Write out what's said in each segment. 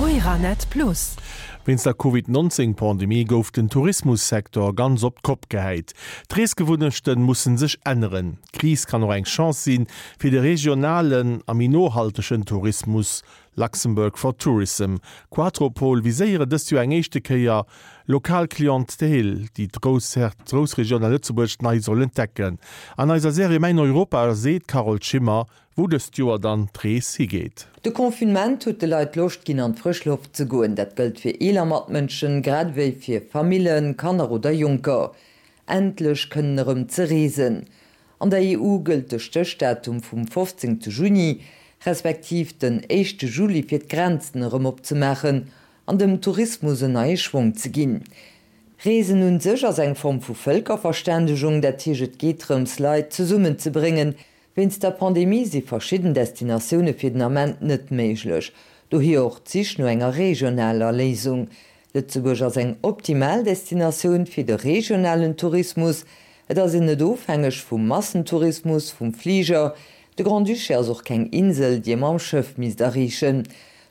Euranet Plus. Wéinst der Covid 19 Pandemie gouf den Tourismussecteur ganz op d'Kopp gehäit. D'Reesgewunnechten mussen sech änneren. D'Kris kann och eng Chance sinn, fir de regionalen a méi nohaltegen Tourismus Luxembourg for Tourism, Quatropol viséiere dëst Joer eng éischte Kéier lokal Clientèle, déi d'Groussregioun a Lëtzebuerg nei soll entdecken. An eiser Serie Mäin Europa seet d'Carole Schimmer, wou dëst Joer dann d'Rees higeet. De Confinement huet de Leit Loscht ginn an d'frësch Loft ze goen. Dat gëllt fir eeler Matmënschen, grad ewéi fir Famillen, Kanner oder Jonker. Endlech kënnen erëm ze reesen. An der EU gëllt de Stéchdatum vum 15 Juni, respektiv den éischte Juli fir d'Grenzen erëm opzemaachen an dem Tourismus en neie Schwong ze ginn. Reesen un sech ass eng Form vu Vëlkerverständegung, dat heescht et geet drëms Leit zesummen ze bréngen. Wéinst der Pandemie si verschidden Destinatioune fir den Ament net méiglech, dohier och d'Sich no enger regionaler Léisung. Lëtzebuerg ass eng optimal Destinatioun fir de regionalen Tourismus. Et ass een net ofhängeg vum Massentourismus, vum Fliger. De Grand-Duché ass och keng Insel, déi ee mam Schëff misst erreechen.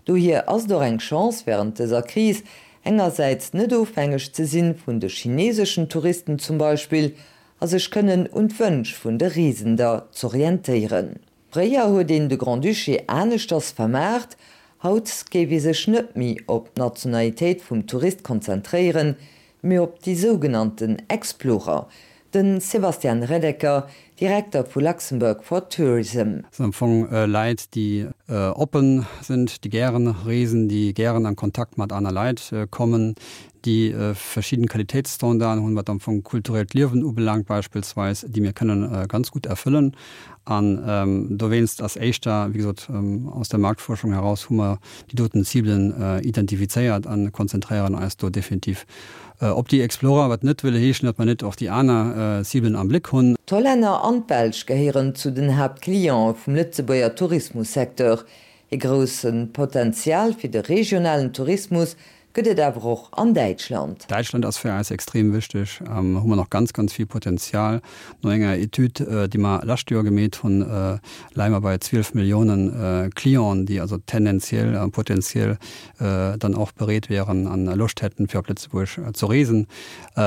Dohier ass et och eng Chance wärend dëser Kris, engersäits net ofhängeg ze sinn vun de chineseschen Touristen zum Beispill, a sech kënnen un d'Wënsch vun de Reesender z'orientéieren. Fréier huet een de Grand-Duché aneschters vermaart, haut géif ee sech net méi op d'Nationalitéit vum Tourist konzentréieren, mee op déi sougenannten Explorer. De Sebastian Redeker, Direkter vu Luxembourg for Tourism. Dat sinn am Fong Leit, déi oppen sinn, déi gären reesen, déi gären an Kontakt mat aner Leit kommen, déi verschidden Qualitéitsstandarden hunn, wat am Fong kulturellt Liewen ubelaangt beispillsweis, déi mir kënnen ganz gutt erfëllen. An dowéinst ass éischter, wéi gesot, aus der Marktforschung heraus hu mer déi doten Ciblen identifizéiert a konzentréieren eis do definitiv op déi Explorer, wat net wëll heeschen, datt mer net och déi aner Ciblen am Bléck hunn. D'Hollänner an d'Belsch gehéieren zu den Haaptcliente vum Lëtzebuerger Tourismussecteur. Ee grousse Potential fir de regionalen Tourismus gëtt et awer och an Däitschland. Däitschland ass fir eis extrem wichteg. Hu mer nach ganz, ganz vill Potenzial. No enger Etüd, déi mer lescht Joer gemeet hunn, leie mer bei 12 Milliounen Clienten, déi also tendenziell a potenziell dann och bereet wieren an Loscht hätten, fir op Lëtzebuerg ze reesen.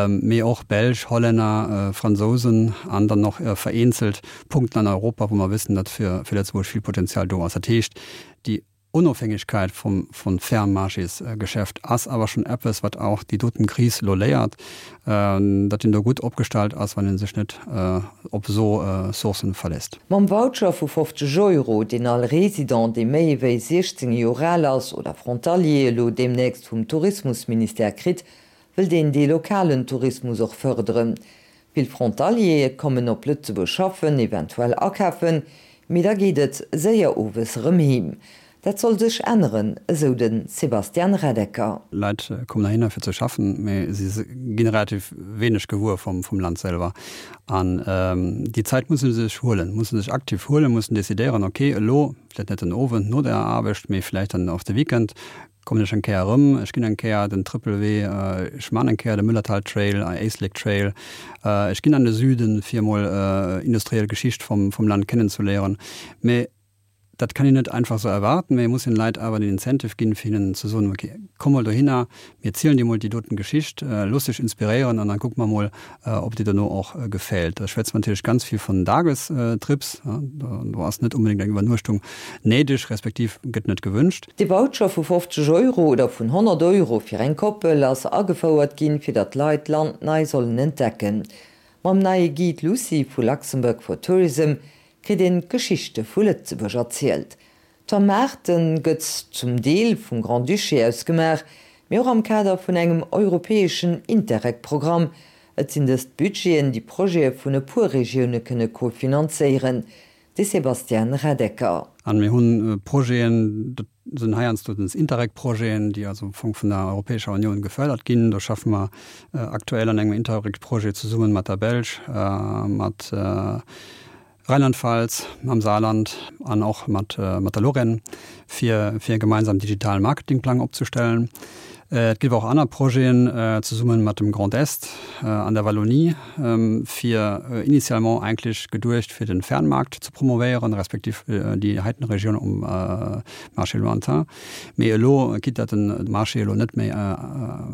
Mee och Belsch, Hollänner, Fransousen an dann och vereenzelt Punkten an Europa, wou mer wëssen, datt fir Lëtzebuerg vill Potenzial do ass. Dat heescht, déi Onofhängegkeit vum vun Fernmarchésgeschäft ass awer schonn eppes, wat auch déi doten Kris elo léiert, datt een do gutt opgestallt ass, wann ee sech net op esou Sourcen verléisst. Mam Voucher vu 50 Euro, deen all Resident, dee méi ewéi 16 Joer al ass, oder Frontalier elo deemnächst vum Tourismusministère kritt, wëllt een dee lokalen Tourismus och fërderen. Vill Frontaliere kommen op Lëtzebuerg schaffen, eventuell akafen, mee da geet et séier owes erëm heem. Dat soll sech änneren, esou de Sebastian Reddecker. Leit kommen heihinner fir ze schaffen, mee si ginn relativ wéineg gewuer vum Land selwer. An déi Zäit musse se sech huelen, musse sech aktiv huelen, mussen decidéieren, ok, elo, vläicht net den Owend no der Aarbecht, mee vläicht dann och de Weekend, Kommen ech eng Kéier erëm, ech ginn eng Kéier den Trëppelwee, ech man eng Kéier de Müllerthal Trail, Éislek Trail, ech ginn an de Süden fir emol industriell Geschicht vum vum Land kennenzeléieren. Mee dat kann een net einfach sou erwarten, mee ee muss den Leit awer den Incentive ginn fir hinnen ze soen, ok, komm mol dohinner, mir zielen dir mol déi doten Geschicht, looss dech inspiréieren an dann kucke mer mol, ob dir dono och gefält. Da schwätze mer natierlech ganz vill vun Dagestrips, do ass net onbedéngt eng Iwwernuechtung néideg, respektiv gëtt net gewünscht. De Voucher vu 50 Euro oder vun 100 Euro fir eng Koppel ass agefouert ginn, fir datt d'Leit d'Land nei sollen entdecken. Mam neie Guide Lucie vu Luxembourg for Tourism kritt een d'Geschichte vu Lëtzebuerg erzielt. D'Vermaarte gëtt zum Deel vum Grand-Duché aus gemaach, mee och am Kader vun engem europäeschen Interreg-Programm. Et sinn dëst Budgeten, déi Projete vun e puer Regioune kënne kofinanzéieren. De Sebastian Redeker. An mir hunn Projeten, dat sinn heiansdo den Interreg-Projeten, déi also am Fong vun der Europäescher Unioun gefördert ginn. Do schaffe mer aktuell an engem Interreg-Projet zesummen mat der Belsch, mat Rheinland-Pfalz, mam Saarland an och mat der Lorraine, fir fir e gemeinsam digitalen Marketingplang opzestellen. Et géif och aner Projeten zesumme mat dem Grand Est an der Wallonie, fir initialement eigentlech geduecht fir de Fernmarkt ze promovéieren, respektiv déi heiten Regioun um Marché lointain. Mee elo, quitte datt den Marché elo net méi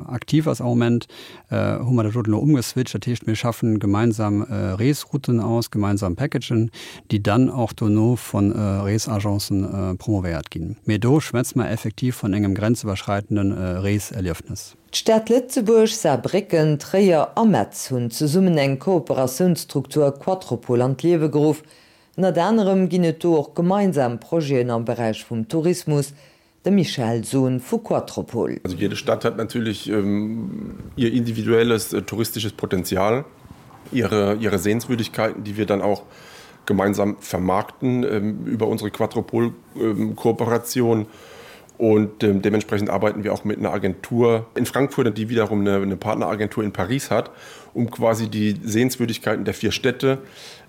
aktiv ass am Moment, hu mer dat doten elo umgeswitcht. Dat heescht, mir schaffen gemeinsam Reesrouten aus, gemeinsam Packagen, déi dann och dono vu Reesagencen promovéiert ginn. Mee do schwätze mer effektiv vun engem grenziwwerschreitende Reeserliefnes. D'Stad Lëtzebuerg, Saarbrécken, Tréier a Metz hunn zesummen eng Kooperatiounsstruktur Quattropol an d'Liewe geruff. Ënnert anerem ginn et do och gemeinsam Projeten am Beräich vum Tourismus, De Michael Sohn vu Quattropol. Also jede Stadt hat natürlich ähm, ihr individuelles äh, touristisches Potenzial, ihre, ihre Sehenswürdigkeiten, die wir dann auch gemeinsam vermarkten ähm, über unsere Quattropol-Kooperation. Ähm, und ähm, dementsprechend arbeiten wir auch mit einer Agentur in Frankfurt, die wiederum eine, eine Partneragentur in Paris hat, um quasi die Sehenswürdigkeiten der vier Städte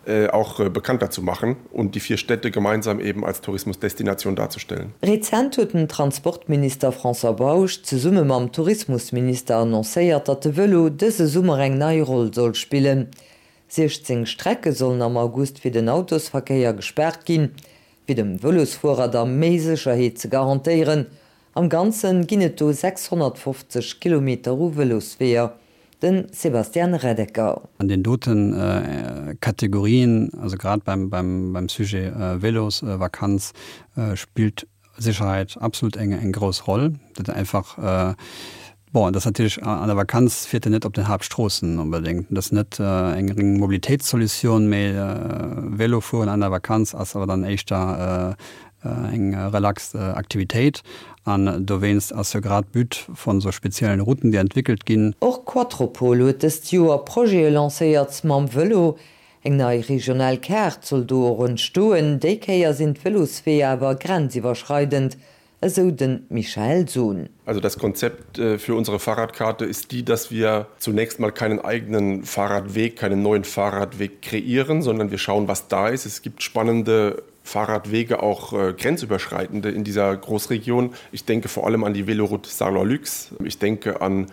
äh, auch äh, bekannter zu machen und die vier Städte gemeinsam eben als Tourismusdestination darzustellen. Rezent huet den Transportminister François Bausch zesumme mam Tourismusminister annoncéiert, datt de Vëlo dëse Summer eng nei Roll soll spillen. 16 Strecke sollen am August fir den Autosverkéier gespaart ginn, fir dem Vëlosfuerer da méi Sécherheet ze garantéieren. Am Ganze ginn et do 650 Kilometer u Vëlosweeër. Den Sebastian Reddecker. An den doten Kategorien, also grad beim, beim, beim Sujet Vélosvakanz, spillt Sicherheit absolut eng, eng grouss Roll. Dat einfach, bon, dat ass natierlech an der Vakanz fiert een net op den Haaptstroossen onbedéngt. Dat ass net eng reng Mobilitéitssolution, mee Vélofueren an der Vakanz ass awer dann éischter eng relax Aktivitéit an dowéinst ass jo grad d'But von sou speziellen Routen, déi entwickelt ginn. Och Quattropol huet dëst Joer Projete lancéiert mam Vëlo. Eng nei regional Kaart soll do och entstoen. Déi Kéier sinn d'Vëlosweeër awer grenziwwerschreidend, esou de Michael Sohn. Also das Konzept für unsere Fahrradkarte ist die, dass wir zunächst mal keinen eigenen Fahrradweg, keinen neuen Fahrradweg kreieren, sondern wir schauen, was da ist. Es gibt spannende Fahrradwege auch äh, grenzüberschreitende in dieser Großregion. Ich denke vor allem an die Veloroute Saarlorlux. Ich denke an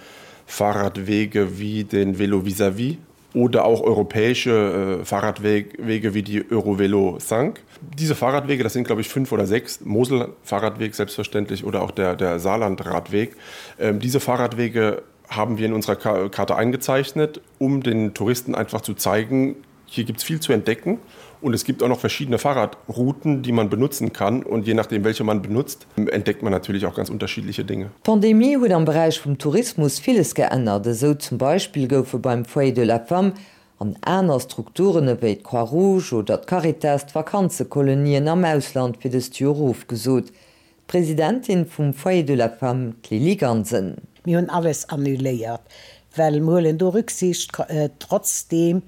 Fahrradwege wie den Velo vis-à-vis -vis oder auch europäische äh, Fahrradwege wie die Eurovelo Sank. Diese Fahrradwege, das sind glaube ich fünf oder sechs Moselfahrradweg selbstverständlich oder auch der, der Saarlandradweg. Ähm, diese Fahrradwege haben wir in unserer Karte eingezeichnet, um den Touristen einfach zu zeigen, hier gibt es viel zu entdecken und es gibt auch noch verschiedene Fahrradrouten, die man benutzen kann und je nachdem welche man benutzt, entdeckt man natürlich auch ganz unterschiedliche Dinge. D'Pandemie huet am Beräich vum Tourismus villes geännert. Esou zum Beispill goufe beim Foyer de la Femme an aner Strukturen ewéi d'Croix Rouge oder d'Caritas d'Vakanzekolonien am Ausland fir dëst Joer ofgesot. D'Presidentin vum Foyer de la Femme, d'Lily Gansen. Mir hunn alles annuléiert, well mir huelen do Rücksicht trotzdeem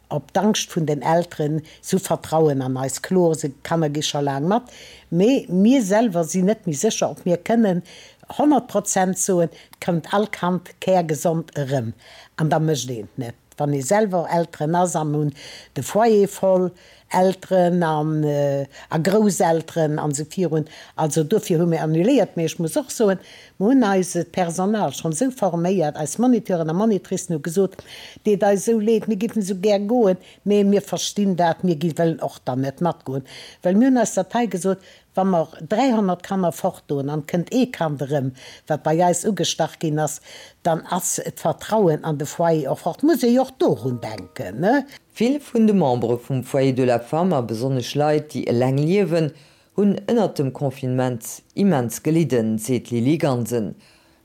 op d'Angscht vun den Elteren. Si hu Vertrauen an eis. Kloer, se Kanner gi scho laang mat, mee mir selwer sinn net méi sécher, ob mir kënnen 100 Prozent soen, et kënnt all Kand kärgesond erëm. An da mécht een et net. Wann ee selwer Elteren ass a mir hunn de Foyer voll, Elteren an a Grousselteren an esou virun. Also dofir hu mir annuléiert. Mee ech muss och soen, mir hunn eist Personal schonn esou forméiert, eis Moniteuren a Monitricen hu gesot, deet eis esou leed, mir géifen esou gär goen, mee mir verstinn dat, mir gi wëllen och dann net matgoen. Well mir hunn eis dat hei gesot, Wa mer 300 Kanner fortdoen an et kënnt ee Kand erëm, wat bei eis ugestach ginn ass, dann ass d'Vertrauen an de Foyer och fort. Muss ee jo och dorun denken, ne? Vill vun de Membere vum Foyer de la Femme a besonnesch Leit, déi eleng liewen, hunn ënnert dem Confinement immens gelidden, seet d'Lily Gansen.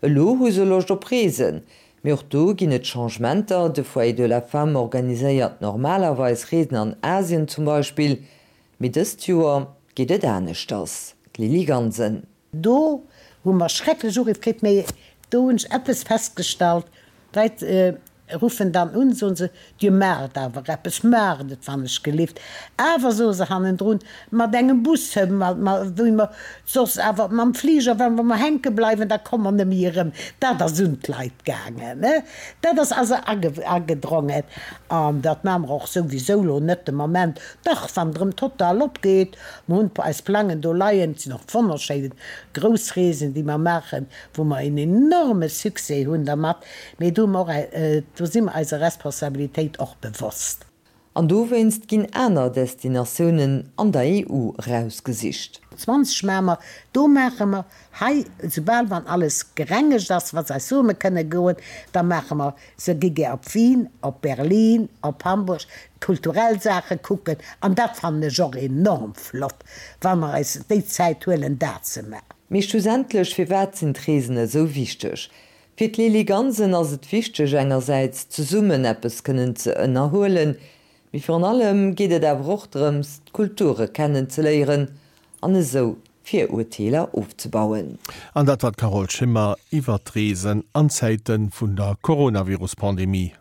Elo hu se Loscht op Reesen, mee och do ginn et Changementer. De Foyer de la Femme organiséiert normalerweis Reesen an Asien zum Beispill, Mee dëst Joer geet et aneschters, d'Lily Gansen. Do hu mer schrecklech Uriff kritt, mee do hunn ech eppes festgestallt, Leit. Ruffen dann un, soen se, Dir maacht awer eppes, maacht et wann ech gelift. Awer, soe se hannendrun, mat engem Bus, wéi mer soss awer mam Fliger, wa mer hänke bleiwen, da komme mer net méi erëm. Dat ass un d'Leit gaangen, dat ass also agedrongen. An dat maache mer och souwisou elo net de Moment. Dach, wann et erëm total opgeet, mer hunn eis Plangen do leien, et sinn och wonnerschéin grouss Reesen, déi mer maachen, wou mer en enorme Succès hunn dermat. Mee do hu mer och, do si mer eiser Responsabilitéit och bewosst. An dowéinst ginn aner Destinatiounen an der EU erausgesicht. 20 maache mer, do maache mer hei, soubal wann alles gerengegt ass, wa se eis soe mer kënne goen, da maache mer, se gi gär op Wien, op Berlin, op Hamburg, kulturell Saache kucken. An dat fannen ech och enorm flott, wa mer eis déi Zäit huelen, dat ze maachen. Mee schlussendlech, firwat sinn d'Reesen esou wichteg? Fir d'Lili Gansen ass et wichteg engersäits zesummen eppes kënnen ze ënnerhuelen, mee virun allem geet et awer och drëms d'Kulture kennen ze léieren an esou Virurteeler ofzebauen. An dat war d'Carole Schimmer iwwer d'Reesen an Zäite vun der Coronavirus-Pandemie.